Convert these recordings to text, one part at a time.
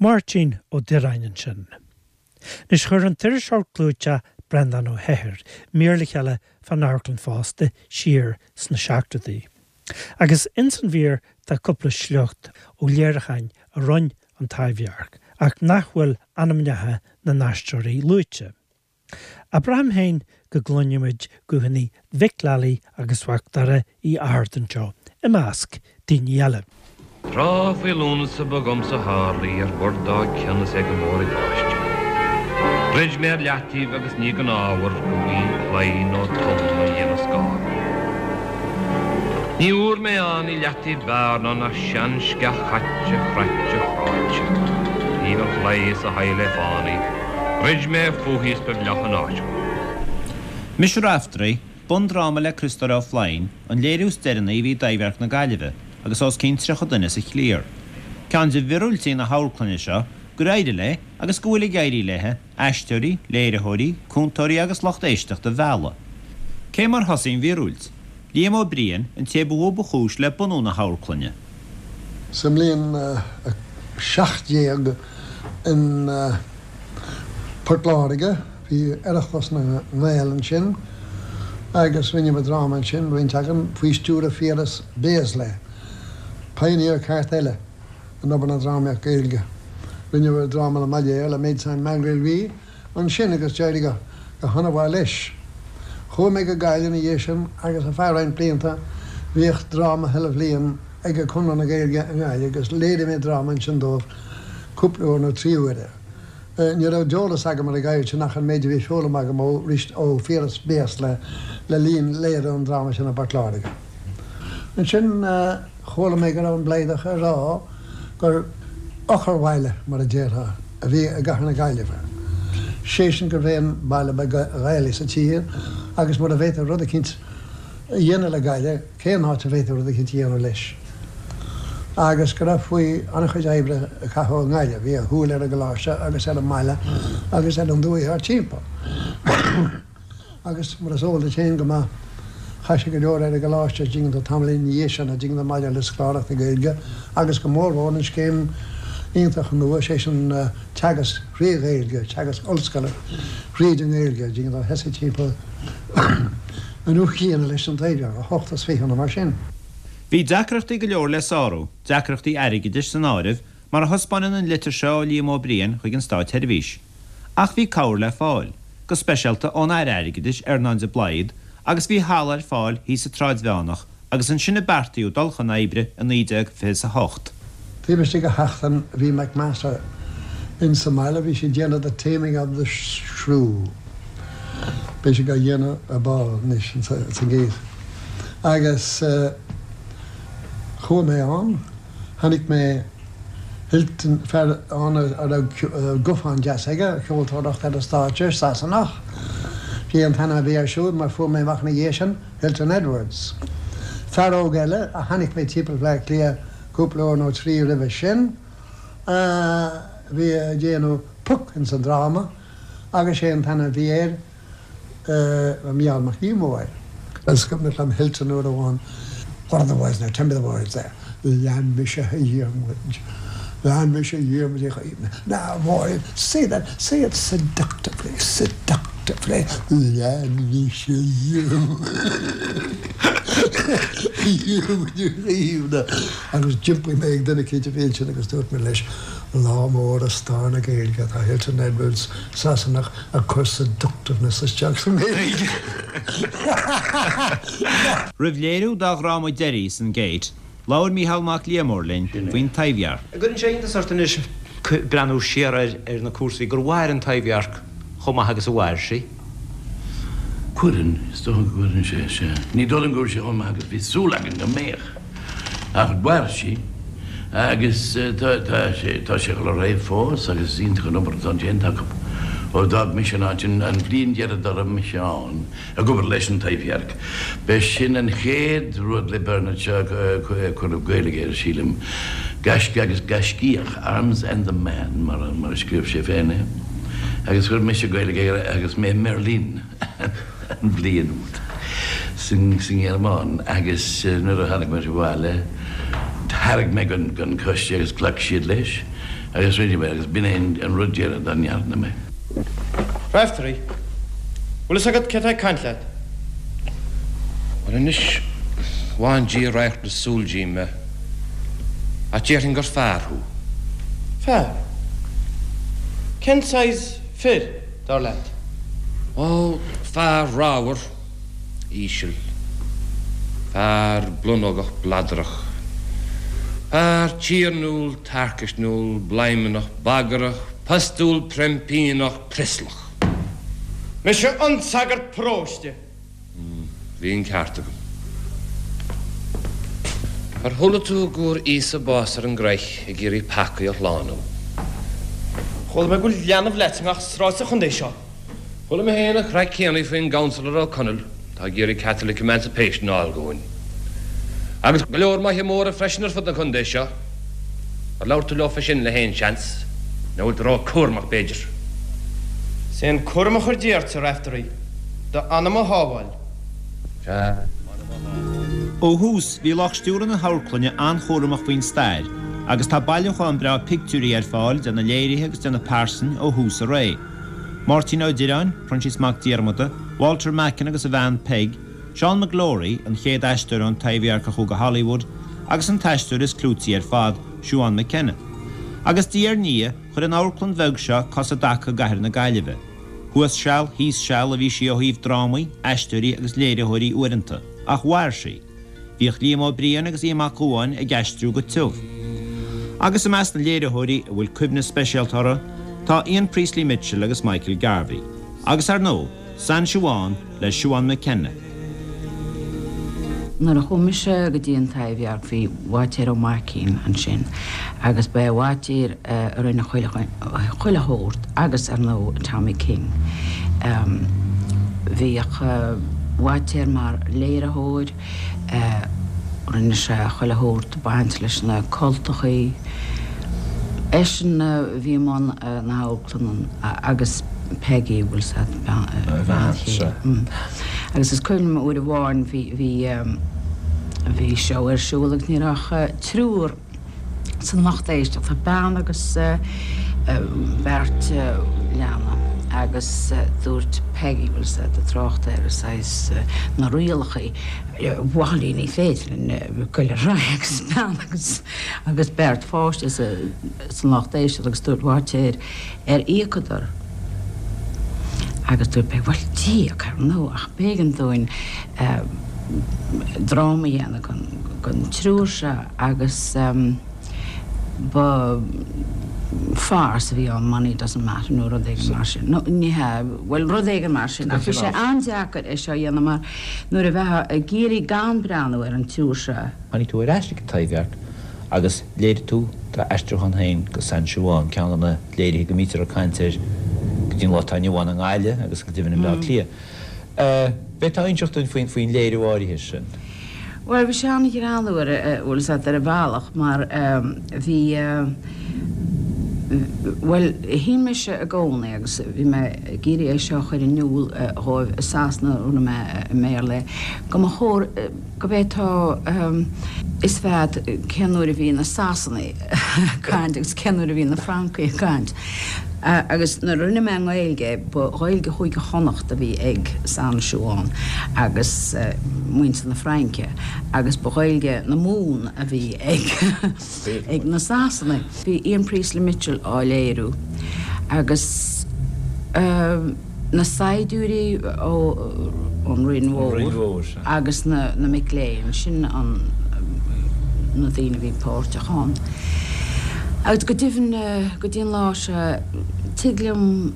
Máirtín Ó Direáin ansin. Anois chuir an t-iriseoir clúiteach Breandán Ó hEithir mír le chéile fán amharclann fosta siar sna seachtóidí. Agus ins an mhír tá cúpla sliocht ó léiriúcháin a rinne an Taibhdhearc ach nach bhfuil ainmneacha na n-aisteoirí luaite. Ach braithim féin go gcluinimid guthanna Mhic Lealaigh agus Mhac Dara Uí Fhátharta anseo, i measc daoine eile. Tráth faoi Lúnasa ba dhomsa tharlaigh ar bord dá cionn is é go mór ag báisteach. Dhruid mé ar leataobh agus ní gan ábhar go mb'í claí nó tonn a dhéanfadh scáth. Ní fhuair mé ann i leataobh b'fhearr ná nach sean-sceach chaite chraite chráite taobh an chlaí is a haghaidh le fánaidh. Dhruid mé fúithi is ba bhleách an áit dhom. Mise Raiftearaí, bundráma le Criostóir Ó Floinn, an léiriú is deireanaí a bhí i dTaibhdhearc na Gaillimhe, agus os cionn 30 duine sa chliar. Ceann de mhiorúiltí na hamharclainne seo gur éirigh léi, agus go bhfuil ag éirí léi, aisteoirí, léiritheoirí, cúntóirí agus lucht éisteachta a mhealladh. Cé mar thosaigh an mhíorúilt? Liam Ó Briain, an té ba mhó ba chúis le bunú na hamharclainne. Sa mbliain 17 in Port Láirge, bhí Oireachtas na nGael ansin agus rinneamar dráma ansin, roinnt againn, faoi stiúradh Phiaras Béaslaí, pioneer ceart eile in obair na drámaíocht Gaeilge. Rinneamar dráma le Molière, Le Médecin Malgré Lui, ansin agus d'éirigh go han-mhaith leis. Chuaigh mé go Gaillimh ina dhiaidh sin agus ar feadh roinnt blianta bhíodh dráma chuile bhliain ag Conradh na Gaeilge i nGaillimh agus léirigh mé dráma ansin dóibh cúpla uair nó 3 huaire. Ní raibh d'eolas agam ar an gceird sin ach an méid a bhí foghlamtha agam ó ó Phiaras Béaslaí le linn léiriú an dráma sin i bPort Láirge. Ansin chuala mé go raibh an Blaghdach ag rá gur eochairbhaile, mar a déarfá, a bhí i gcathair na Gaillimhe. Sé sin gurbh é an baile ba Ghaelaí sa tír agus mura bhféadfaí rud eicínt a dhéanamh le Gaillimh, cén áit a bhféadfaí rud eicínt a dhéanamh leis? Agus go raibh faoi an-chuid oibre a caitheadh i nGaillimh. Bhí a shúil ar an gcoláiste agus ar an mbaile agus ar an dúiche thart timpeall. Agus mar is eol duit féin go maith, chaith sé go leor ar an gcoláiste, an dtuigeann tú, tamaillín ina dhiaidh sin, an dtuigeann tú, maidir le scoláireacht na Gaeilge agus go mórmhór an scéim iontach nua, sé sin teagasc thrí Ghaeilge, teagasc ollscoile thríd an nGaeilge, an dtuigeann tú, thosaigh timpeall an uair chéanna leis an Taibhdhearc, 28 nó mar sin. Bhí deacrachtaí go leor le sárú, deacrachtaí airgeadais san áireamh, mar a thaispeánann an litir seo ó Liam Ó Briain chuig an Státseirbhís. Ach bhí cabhair le fáil, go speisialta ón Aire Airgeadais, Earnán de Blaghd, agus bhí halla ar fáil thíos sa tSráid Mheánach agus ansin a beartaíodh dul chun oibre i 1928. Taobh istigh de sheachtain bhí McMaster in sa mbaile, bhí sé ag déanamh The Taming of the Shrew, beidh sé á dhéanamh ar ball anois sa Gate, agus chuaigh mé ann. Chonaic mé Hilton, fear ann a raibh guthán deas aige, ceoltóireacht ar an stáitse, Sasanach. B'é an t-ainm a bhí air siúd, mar fuair mé amach ina dhiaidh sin, Hilton Edwards. Fear óg eile a chonaic mé timpeall Bhaile Átha Cliath cúpla uair nó trí roimhe sin, a bhí ag déanamh Puck ins an dráma, agus sé an t-ainm a bhí air, Mícheál Mac Liammóir. Is cuimhneach liom Hilton uair amháin, What are the words now? Tell me the words there. Lean mise a Dhiarmuid, lean mise a Dhiarmuid Uí Chaoimh. Now, Máirín, say that, say it seductively, seductively. Lean mise a Dhiarmuid, Dhiarmuid Uí Chaoimh. Agus d'iompaigh mé ag duine eicínt a bhí ansin agus dúirt mé leis, Lá mór i stair na Gaeilge atá Hilton Edwards, Sasanach, ag cur seductiveness isteach sa nGaeilge. Roimh léiriú dá dhráma deiridh san Gate, labhair Mícheál Mac Liammóir linn faoin Taibhdhearc. An gcuireann sé iontas ort anois breathnú siar ar na cúrsaí gur mhair an Taibhdhearc chomh maith agus a mhair sí? Cuireann, is dócha go gcuireann sé, sea. Ní dóigh liom go bhfuil sé chomh maith agus bhí súil againn go mbeadh. Ach mhair sí agus tá sé tá sé ag dul ar aghaidh fós agus is iontach an obair atá déanta acu. Ó d'fhág mise an áit an bhliain dheiridh dá raibh mise ann ag obair leis an Taibhdhearc, b'é sin an chéad rud le Bernard Shaw a cuireadh Gaeilge air, sílim, Gaisce agus Gaiscíoch, Arms and the Man mar a scríobh sé féin é, agus chuir mise Gaeilge air agus mé i mBeirlín. an bhliain úd sa nGearmáin agus nuair a tháinig muid abhaile thairg mé don choiste agus ghlac siad leis. Agus rinne mé agus b'in é an rud deireadh dá ndearna mé. Raiftearaí, Bhfuil fhios agat cé tá ag caint leat? Bhuel anois, bhain Dia radharc na súl díom, ach déarfainn gur fear thú. Fear? Cén saghas fir, dar leat? Ó, fear ramhar, íseal. Fear blonógach bladrach. Fear tiarnúil tarcaisniúil bladhmannach bagrach postúil prempíneach prioslach. Mise an sagart paróiste. Bhí an ceart agam. Ar chuala tú go bhfuair Íosa bás ar an gcroich ag iarraidh peacaí a shlánú? Chuala mé go bhfuil leanbh leat i ngach sráid sa chontae seo. Chuala mé féin an chraic céanna faoin gCouncillor Ó Conaill atá ag iarraidh Catholic Emancipation a fháil dhúinn. Agus go leor maithe móra freisin ar fud an chontae seo. Ar labhair tú leofa sin le haon seans? Nó bhfuil tú ró-cúramach b'fhéidir? Is é an cúram a chuir Dia ort, a Raiftearaí, d'anam a shábháil. Sea, m'anam a shábháil. Ó thús, bhí lucht stiúrtha na hamharclainne an-chúramach faoin stair agus tá bailiúchán breá pictiúirí ar fáil de na léirithe agus de na pearsain ó thús a ré. Máirtín Ó Direáin, Proinsias Mac Diarmada, Walter Macken agus a bhean Peig, Seán McLory, an chéad aisteoir ón Taibhdhearc a chuaigh go Hollywood, agus an t-aisteoir is clúití ar fad, Siobhán McKenna. Agus diaidh ar ndiaidh, chuir an amharclann bheag seo cos i dtaca i gcathair na Gaillimhe. Thuas seal, thíos seal a bhí sí ó thaobh drámaí, aisteoirí agus léiritheoirí uaireanta, ach mhair sí. Bhíodh Liam Ó Briain agus Aodh Mac Gabhann ag aistriú go tiubh. Agus i measc na léiritheoirí a bhfuil cuimhne speisialta orthu, tá Ian Priestley Mitchell agus Michael Garvey. Agus ar ndóigh, San Siobhán le Siobhán McKenna. Nuair a chuaigh mise go dtí an Taibhdhearc bhí Bháitéar Ó Maicín ansin agus ba é Bháitéar a rinne chuile shórt agus ar ndóigh Tommy King. Bhíodh Bháitéar mar léiritheoir, rinne sé chuile shórt baint leis na cultachaí. Eisean a bhí i mbun na hamharclainne agus Peggy, bhfuil 's a'd, a bhean chéile. Agus is cuimhin liom uair amháin bhí, bhí, bhí seó ar siúl agus ní raibh ach triúr san lucht éisteachta, bean agus beirt leanbh agus dúirt Peggy, bhfuil 's a'd, tráchtaire saghas na rialachaí, bhail ní féidir linn goil ar aghaidh agus bean agus agus beirt pháiste san lucht éisteachta agus dúirt Bháitéar ar íocadar agus dúirt Peg bhuel d'íoc ar ndóigh ach b'éigean dúinn dráma a dhéanamh don triúr seo agus ba farce a bhí ann money doesn't matter nó rud éigin mar sin nó ní hea bhuel rud éigin mar sin ach bhí sé an-deacair é seo a dhéanamh mar nuair a bheifeá ag iarraidh gan breathnú ar an triúr seo Tháinig tú ar ais ag an Taibhdhearc agus léirigh tú d'aistriúchán féin de San Siobhán, ceann de na léirithe go mbítear ag caint air go dtí an lá atá inniu ann i nGaillimh agus go deimhin i mBleá Cliath. B'fhéidir inseacht dúinn faoin léiriú áirithe sin. Bhuel, bhí sé an-ghreannmhar, bhfuil 's a'd, ar bhealach mar bhí, bhuel, shíl mise i gcónaí agus bhí mé ag iarraidh é seo a chur in iúl dhóibh i Sasana, rinne mé i mBéarla é, go mba chóir, go bhféadfá fhios bheith a'd cén uair a bhí na Sasanaigh ag caint agus cén uair a bhí na Francaigh ag caint. Agus nuair a rinne mé i nGaeilge é, ba Ghaeilge Chúige Chonnacht a bhí ag San Siobhán agus muintir na Fraince agus ba Ghaeilge na Mumhan a bhí ag ag na Sasanaigh. Bhí Ian Priestley Mitchell á léiriú agus. na saighdiúirí ón Rinn Mhór agus na mic léinn, sin na daoine a bhí páirteach ann. Agus go deimhin, go dtí an lá seo, tig liom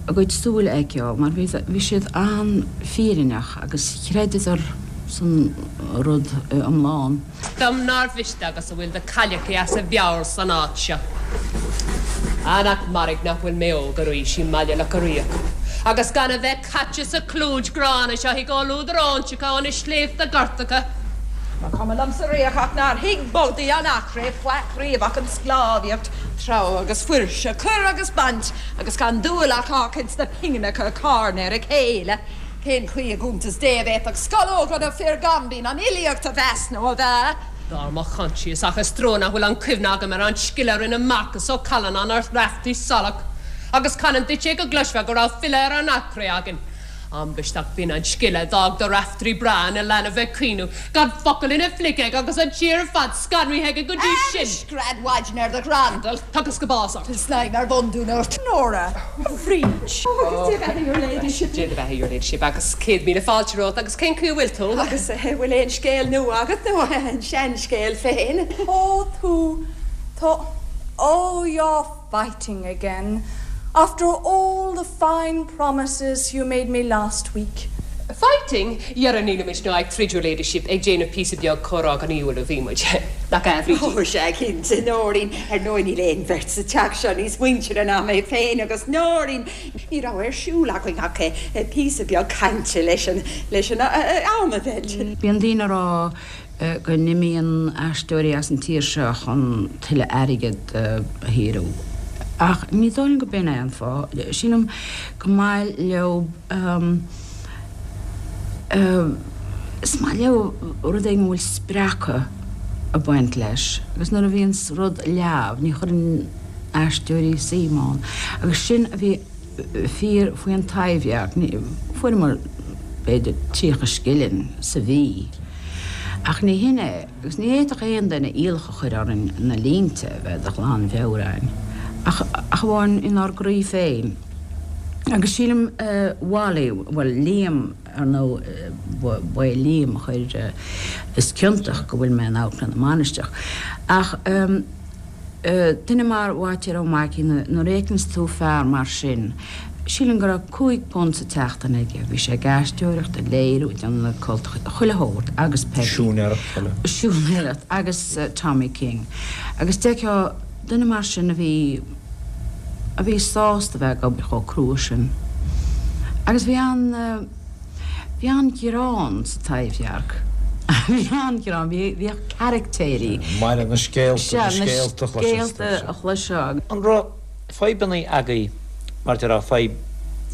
a gcuid súile a fheiceáil mar bhí siad an-fhírinneach agus chreideadar san rud iomlán. Dom nár mhiste agus a bhfuil de cailleachaí as a mheabhair san áit seo. Ah, nach mairg nach bhfuil mé óg arís i mBaile Locha Riach, agus gan a bheith caite sa chlúid ghránna seo i gcomhluadar óinseacha ó na sléibhte gortacha. Ba chuma liomsa riamh ach nár thuig boltaí an Eachréidh faic riamh ach an sclábhaíocht, treabhadh agus fuirse, cur agus baint, agus gan dúil ach ach ins na pingineacha a carnadh ar a chéile. Cén chaoi i gcuntas Dé a bhféadfadh scológa nó fir gaimbín an fhilíocht a mheas nó a mheá? Dar mo choinsias ach is trua nach bhfuil an cuimhne agam ar an scile a rinne Marcas Ó Callanáin ar Raftaí Salach agus canann duit é go gcloisfeá go raibh file ar an Achréidh againn. Ambaist ach b'in an scile a d'fhág do Raifteirí breá ina leanbh ag caoineadh, gan focal ina phluic aige agus an tír ar fad scanraithe aige go dtí sin. Anois gread mhaidin ar do dhrandal. Thugas go bás ort. Tá snaidhm ar bhundún ort. Nóra, a Bhríd. Ó, Dia do bheatha your ladyship. Dia do bheatha your ladyship agus 100,000 fáilte romhat agus cén chaoi a bhfuil tú? Agus an bhfuil aon scéal nua agat nó an seanscéal féin? Ó tú, tá, oh you're fighting again after all the fine promises you made me last week. Fighting? Dhera nílimid ná ag troid your ladyship, ag déanamh píosa beag comhrá gnaíúil a bhí muid. Nach ea, a Bhrídín? Ó, sea, cinnte, Nóirín. Ar ndóigh níl aon bheirt sa teach seo níos muintire ná mé féin agus Nóirín. Ní raibh ar siúl againn ach píosa beag cainte leis an, leis an am a mheilt. Bíonn daoine ag rá go n-imíonn aisteoirí as an tír seo chun tuilleadh airgid a shaothrú. Ach ní dóigh liom go b'in é an fáth. Sílim go maith leo, is maith leo rud éigin a bhfuil spreacadh ag baint leis. Agus nuair a bhíonns rud leamh, ní chuireann aisteoirí suim ann. Agus sin a bhí fíor faoi An Taibhdhearc. Fuaireamar b'fhéidir 30 scilling sa mhí. Ach ní hin é, agus ní fhéadfadh aon duine iallach a chur orainn na línte a bheith de ghlanmheabhair againn, ach amháin inár gcroí féin. Agus sílim Wally, bhuel, Liam, ar ndóigh, ba é Liam a chuir, is ciontach go bhfuil mé in Amharclann na Mainistreach. Ach. Duine mar Bháitéar Ó Maicín, nuair a fheiceanns tú fear mar sin, sílim go raibh £5 sa tseachtain aige, bhí sé ag aisteoireacht, ag léiriú, ag déanamh na cultacha, chuile shórt, agus Peggy. Siúinéireacht eile. Siúinéireacht, agus Tommy King. Agus d'fheicfeá duine mar sin a bhí, a bhí sásta bheith ag obair chomh crua sin. Agus bhí an. Bhí an-ghreann sa Taibhdhearc. Bhí an-ghreann. Bhíodh caraictéirí. Maille na scéalta, na scéalta a chloisfeá. Sea, na scéalta a chloisfeá. An raibh fadhbanna agaibh, mar déarfá, fadhb,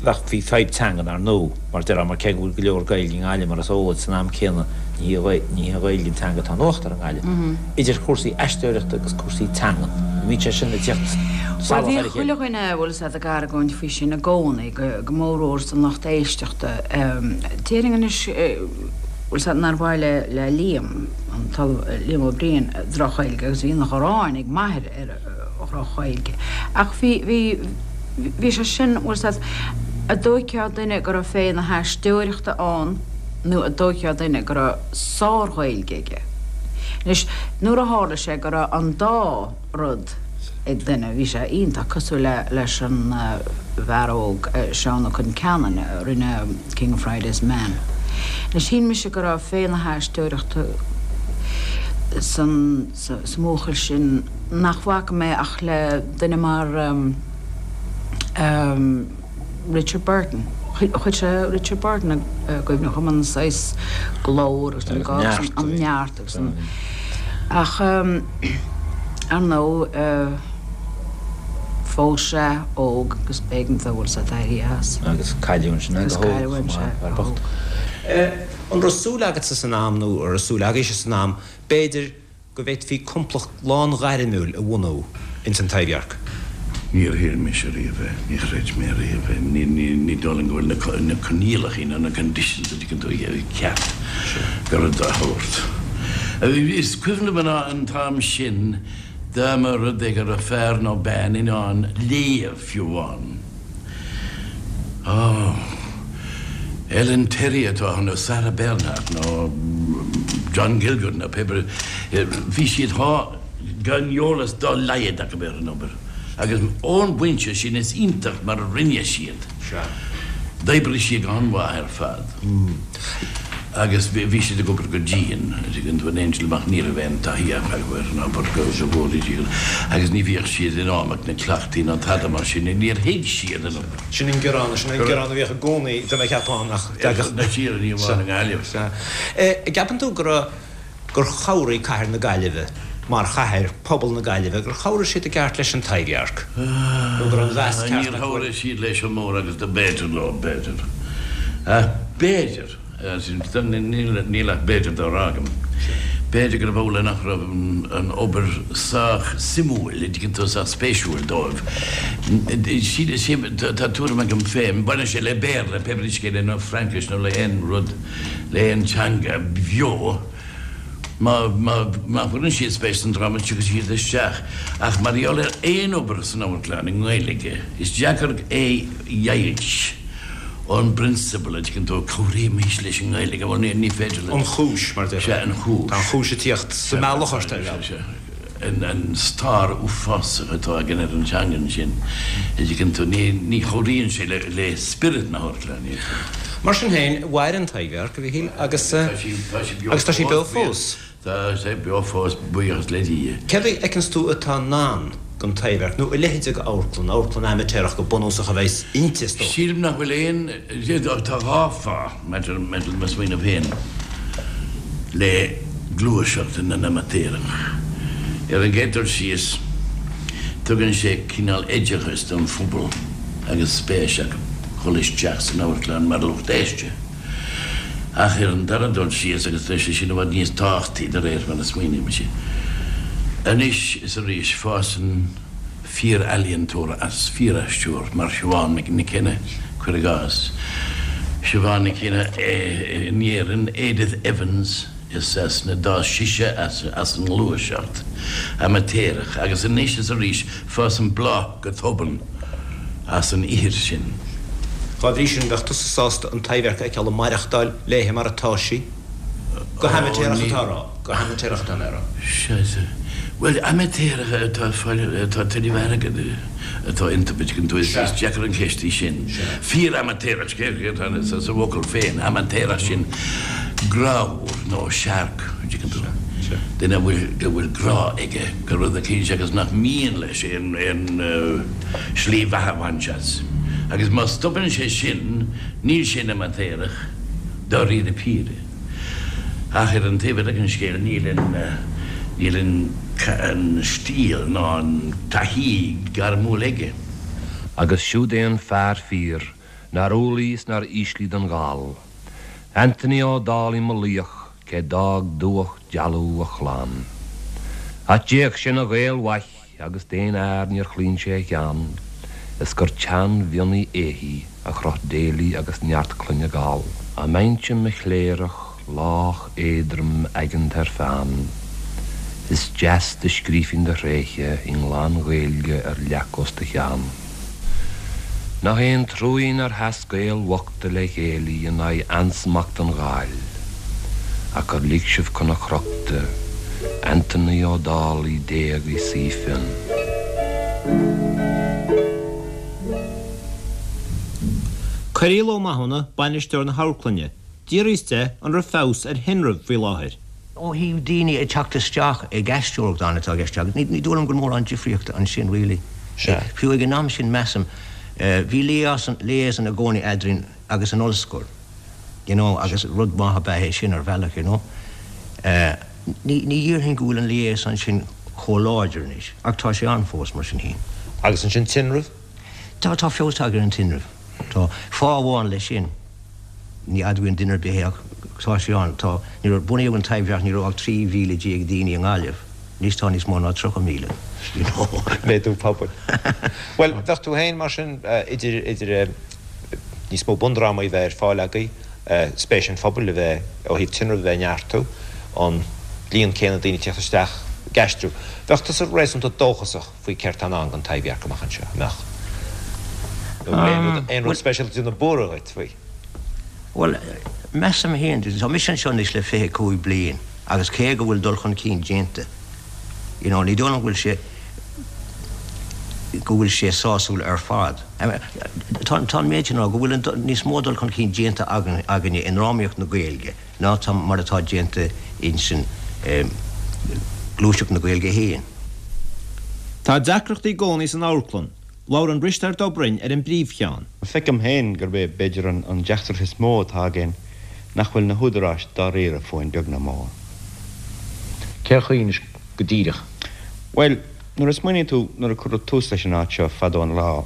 bheadh, bhí fadhb teangan ar ndóigh, mar déarfá, mar cé go bhfuil go leor Gaeilge i nGaillimh mar is eol duit, san am céanna ní hí, ní hí an Ghaeilge an teanga atá in uachtar i nGaillimh. Idir chúrsaí aisteoireachta agus cúrsaí teangan, an mbíonn sé sin ag tíocht Bhuel, salach bhí ar a chéile? chuile dhuine, bhfuil fhios a'd, ag argóint faoi sin i gcónaí. go mórmhór san lucht éisteachta. Déarfainn anois, bhfuil fhios a'd, nár mhaith le le Liam, an tOllamh Liam Ó Briain, droch-Ghaeilge agus bhí an ghráin ag m'athair ar dhroch-Ghaeilge. Ach bhí, bhí, bhí sé sin, bhfuil fhios a'd, a' dtóigfeá duine go raibh féith na haisteoireachta ann nó a' dtóigfeá duine go raibh sár-Ghaeilge aige. Anois, nuair a tharla sé go raibh an dá rud ag duine. Bhí sé iontach cosúil le leis an bhfear óg Seán Ó Concheanainn a rinne King of Friday's Men. Anois shíl mise go raibh féith na haisteoireachta san sa mbuachaill sin nach bhfaca mé ach le duine mar Richard Burton. Chuir sé Richard Burton i gcuimhne dhom, an saghas glór agus an neart agus an. Ach ar ndóigh phós sé óg agus b'éigean dó bhfuil fhios a'd éirí as. Agus cailleadh ansin é go hóg chomh maith, fear bocht. An raibh súil agatsa san am nó an raibh súil agaibhse san am b'fhéidir go bhféadfaí complacht lán-ghairmiúil a bhunú ins an Taibhdhearc. Níor shíl mise riamh é, ní chreid mé riamh é, ní dóigh liom go bhfuil na coinníollacha nó na conditions a dtuigeann tú ceart go rud dá shórt. Is cuimhin liom an t-am sin dá mba rud é go raibh fear nó bean in ann léamh fiú amháin. Ó, Ellen Terry atá ann, nó Sarah Bernhardt, nó John Gielgud, nó pé bith, bhí siad thá gan eolas dá laghad acu ar an obair. Agus ón bpointe sin is iontach mar a rinne siad. D'oibrigh siad go han-mhaith ar fad. Agus bhí siad ag obair go dian, an dtuigeann tú, in éindí liom ach ní raibh aon taithí acu ar an obair go bhfóire Dia agus ní bhíodh siad in am ag na cleachtaí ná tada mar sin, níor thuig siad an obair. Sin an gearán, sin an gearán a bhíodh i gcónaí, tá mé ag ceapadh, nach dtagadh. Na tíre, ní amháin i nGaillimh. Sea. An gceapann tú go raibh, gur chabhraigh cathair na Gaillimhe, mar chathair, pobal na Gaillimhe, gur chabhraigh siad i gceart leis an Taibhdhearc? Nó go raibh an mheas ceart acu? Níor chabhraigh siad leis an mór agus do b'fhéidir leo, b'fhéidir. Ach b'fhéidir. Níl ach b'fhéidir dá rá agam. B'fhéidir gurb amhlaidh nach raibh an obair sách suimiúil, an dtuigeann tú, sách spéisiúil dóibh. Tá tuairim agam féin, baineann sé le Béarla, pé brí scéal é, nó Fraincis nó le haon rud, le haon teanga bheo, má chuireann siad spéis san dráma, tiocfaidh siad isteach. Ach mar gheall ar aon obair san amharclann i nGaeilge, is deacair é a dheighilt. ón bprionsabal, an dtuigeann tú, cabhraímis leis an nGaeilge, bhuel, ní féidir leat. An chúis, mar a déarfá. Sea, an chúis. Tá an chúis ag tíocht sa mbealach ort, ar bhealach. Sea, sea. An stair uafásach atá againn ar an teanga ansin, an dtuigeann tú, ní chabhraíonn sé le spiorad na hamharclainne. Mar sin féin, mhair an Taibhdhearc, a Mhichíl, agus tá sí beo fós. Tá sé beo fós, buíochas le Dia. Céard a fheiceanns tú atá i ndán don Taibhdhearc, nó a leithéid de amharclann, amharclann amaitéarach go bunúsach a bheas inti, is dócha? Sílim nach bhfuil aon, tá dhá fáth, maidir le mo smaoineamh féin, le gluaiseacht na n-amaitéarach. Ar an gcéad dul síos, tugann sé cineál oideachais don phobal agus spéis acu dhul isteach san amharclann mar lucht éiste. Ach ar an dara dul síos, agus tá sé sin i bhfad níos tábhachtaí de réir mar a smaoinímse, anois is arís fásann fíor-ealaíontóir as fíor-aisteoir mar Siobhán Nic Cionnaith, cuir i gcás. Siobhán Nic Cionnaith in Éirinn, Edith Evans i Sasana, d'fhás sise as an ngluaiseacht amaitéarach agus anois is arís fásann bláth go tobann as an ithir sin. Dá bhrí sin, bheadh tusa sásta an Taibhdhearc a fheiceáil ag maireachtáil léithe mar atá sí? Go hamaitéarach atá a rá. Go hamaitéarach atá mé a rá. Sea, sea. Bhuel, amaitéarach atá ag fáil, atá tuilleamh airgid atá iontu, an dtuigeann tú, is deacair an cheist í sin. Fíor-amaitéarach, céard atá sa bhfocal féin, amaitéarach, sin grámhar nó searc, an dtuigeann tú? Duine a bhfuil, go bhfuil grá aige do rud eicínt agus nach mian leis aon, aon slí bheatha a bhaint as. Agus má stopann sé sin, níl sé ina amaitéarach, dáiríre píre. Ach ar an taobh eile den scéal, níl an, níl an, an stíl ná an taithí gairmiúil aige. Agus siúd é an fear fíor nár umhlaigh is nár ísligh don Ghall, Anthony Ó Dálaigh mo laoch cé d'fhág dubhach dealbh a chlann. Ach d'fhéach sé 'na Ghael mhaith agus d'aon fhear níor chlaon sé a cheann, is gur teann mhionnaigh éithigh a chroth Daly agus neart clainne Gall. Dá mbeinnse 'mo chléireach lách éadrom aigeanta ar pheann, is deas do scríofainn do thréithe i nglan-Ghaeilge ar leac os do chionn. Nach é an truaigh nár sheas Gaeil bhochta le chéile in aghaidh ansmacht an Ghaill, ach gur lig sibh chun a chrochta Anthony Ó Dálaigh d'éag i saoi fionn. Cearbhall Ó Mathúna, bainisteoir na hamharclainne, d'fhiafraíos de an raibh feabhas ar thinreamh faoi láthair. Ó thaobh daoine ag teacht isteach ag aisteoireacht ann atá i gceist agat, ní dóigh liom go bhfuil mórán difríochta ansin really. Sea. Fiú ag an am sin measaim, bhí liaison, liaison i gcónaí eadrainn agus an ollscoil, you know, agus rud maith ab ea é sin ar bhealach, you know. Ní, ní dhéarfainn go bhfuil an liaison sin chomh láidir anois, ach tá sé ann fós mar sin féin. Agus ansin tinreamh? Tá, tá feabhas tagtha ar an tinreamh. Tá. Fáth amháin leis sin. Ní admhaíonn duine ar bith é ach tá sé ann. Tá, nuair a bunaíodh an Taibhdhearc ní raibh ach 13,000 daoine i nGaillimh. Anois tá níos mó ná 30,000. You know. Méadú pobail. Bhuel, bheadh tú féin mar sin idir, idir níos mó bundrámaí a bheith ar fáil agaibh, spéis an phobail a bheith, ó thaobh tinreamh a bheith ag neartú, an líon céanna daoine ag teacht isteach ag aistriú. Bheadh tusa réasúnta dóchasach faoi céard tá i ndán don Taibhdhearc amach anseo, an mbeadh? Nó an bhfuil aon rud, aon rud speisialta ag déanamh buartha dhuit faoi? Bhuel, measaim féin, tá mise anseo anois le 25 bliain agus cé go bhfuil dul chun cinn déanta, you know, ní dóigh liom go bhfuil sé, go bhfuil sé sásúil ar fad. Tá, tá an méid sin á rá, go bhfuil an, níos mó dul chun cinn déanta againn, againne i ndrámaíocht na Gaeilge ná tá, mar atá déanta insan gluaiseacht na Gaeilge féin. Tá deacrachtaí i gcónaí san amharclann. Labhrann Risteárd Ó Broin ar an bpríomhcheann. Feicim féin gurb é b'fhéidir an deacracht is mó atá againn nach bhfuil na húdaráis dáiríre fúinn beag ná mór. Cén chaoi anois go díreach? Bhuel, nuair a smaoiníonn tú, nuair a cuireadh tús leis an áit seo fadó an lá,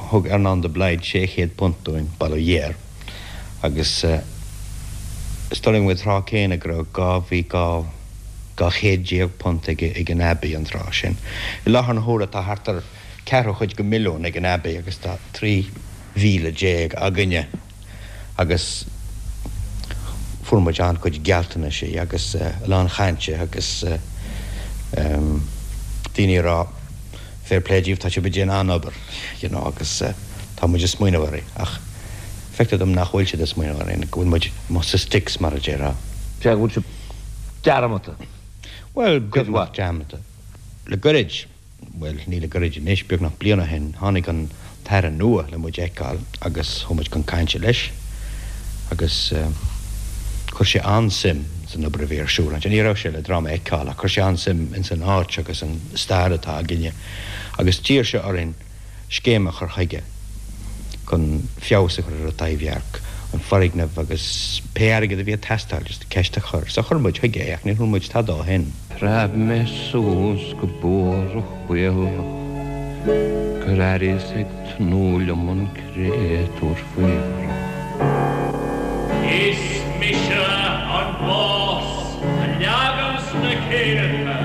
thug Earnán de Blaghd £600 dúinn, bail ó Dhia air, agus. Is dóigh liom an tráth céanna go raibh 2 bhí £200 ag ag an Abbey an tráth sin. I láthair na huaire tá thart ar ceathrú chuid de mhilliún ag an Abbey agus tá 13,000 againne agus fuair muid an-chuid gealltanaisí agus a lán chainte agus daoine ag rá fair play díobh tá sibh ag déanamh an-obair you know agus tá muid ag smaoineamh uirthi ach feictear dom nach bhfuil siad ag smaoineamh orainn, go bhfuil muid amuigh sa sticks mar a déarfá. Sea, go bhfuil sibh dearmadta. Bhuel, beagnach dearmadta. Le goirid, bhuel, ní le goirid anois, beagnach bliain ó shin, tháinig an tAire nua le muid a fheiceáil agus chuaigh muid chun cainte leis agus chuir sé an-suim san obair a bhí ar siúl ansin. Ní raibh sé le dráma a fheiceáil ach chuir sé an-suim ins an áit agus an stair atá againne agus d'iarr sé orainn scéim a chur chuige chun feabhas a chur ar an Taibhdhearc, an foirgneamh agus pé airgead a bhí ag teastáil, just ceist a chur. So chuir muid chuige é ach níor chuala muid tada ó shin. Phreab mé suas go buarach baotach gur airíos ag tnúth liom an créatúr faobhrach. Is mise an Bás a leaganns na céadta.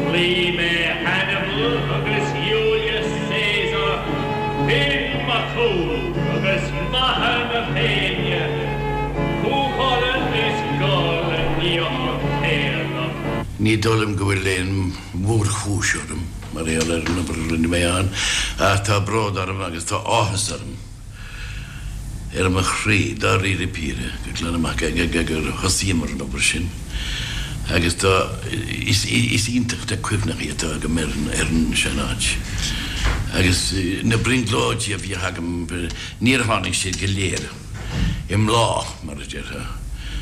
Chloígh mé Hannibal agus Iúlius Caesar, Finn Mac Cumhaill agus Macha na Féinne, Cú Chulainn is Goll a níodh an t-éadach. Ní dóigh liom go bhfuil aon mhórchúis orm mar gheall ar an obair a rinne mé ann ach tá bród orm agus tá áthas orm. ar mo chroí, dáiríre píre, go glan amach gur thosaíomar an obair sin agus tá, is iontach na cuimhneacha atá agam ar an sean-áit agus na brionglóidí a bhíodh agam, níor tháinig siad go léir i mbláth, mar a déarfá,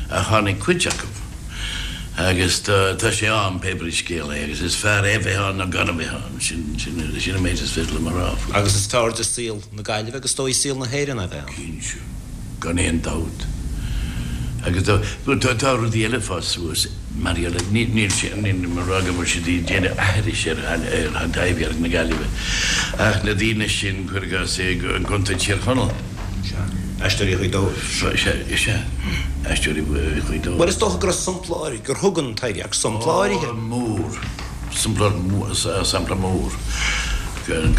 ach tháinig cuid acu agus tá sé ann pé brí scéal é agus is fearr é a bheith ann ná gan a bheith ann, sin an méid is féidir liom a rá faoi. Agus is fearr do saol na Gaillimhe agus is dóigh saol na hÉireann a bheith ann. Cinnte, gan aon dabht. Agus tá tá rudaí eile ag fás suas mar gheall ar, níl sé, nílim ag rá go bhfuil siad ag déanamh aithris ar ar Thaibhdhearc na Gaillimhe ach na daoine sin, cuir i gcás, i gContae Thír Chonaill. Sea. Aisteoirí Ghaoth Dobhair. Sea, sea. Aisteoirí Ghaoth Dobhair. Bhuel is dócha go raibh sampla áirithe, gur thug an Taibhdhearc sampla áirithe. Ó, mór. Sampla mór, sampla mór. Don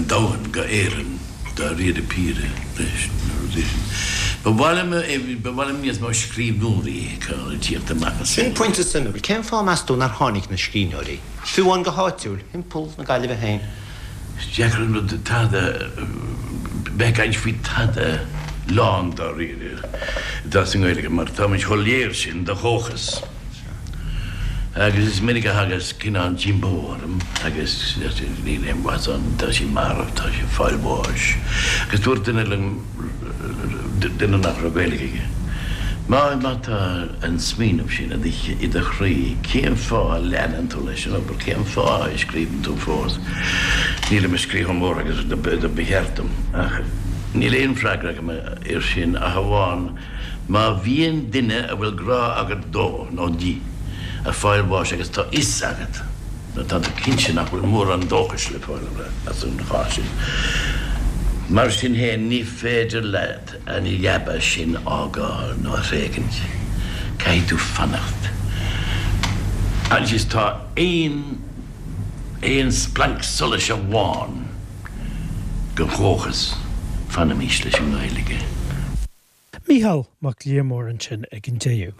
domhan, go Éirinn, dáiríre píre, leis na rudaí sin. Ba mhaith liom, ba mhaith liom níos mó scríbhneoirí a fheiceáil ag tíocht amach as. Sin pointe suimiúil. Cén fáth, meas tú, nár tháinig na scríbhneoirí, fiú amháin go háitiúil, thimpeall na Gaillimhe féin? Is deacair an rud tada, bheith ag caint faoi tada lán dáiríre atá sa nGaeilge mar táimid chomh léir sin de dhóchas. Agus is minic a thagas cineál díomá orm agus níl aon mhaith ann, tá sí marbh, tá sí ag fáil bháis. Agus dúirt duine liom, duine nach raibh Gaeilge aige, má má tá an smaoineamh sin i do chroí, cén fáth a leanann tú leis an obair, cén fáth a scríobhann tú fós? Nílim ag scríobh chomh mór agus do ba cheart dom ach níl aon freagra agam air sin ach amháin Má bhíonn duine a bhfuil grá agat dó nó di ag fáil bháis agus tá fhios agat nó tá tú cinnte nach bhfuil mórán dóchais le fáil as an chás sin, mar sin féin ní féidir leat an leaba sin a fhágáil nó a thréigint. Caithfidh tú fanacht. Agus tá aon aon splanc solais amháin de dhóchas, fanaimis leis an nGaeilge. Mícheál Mac Liammóir ansin ag an deireadh.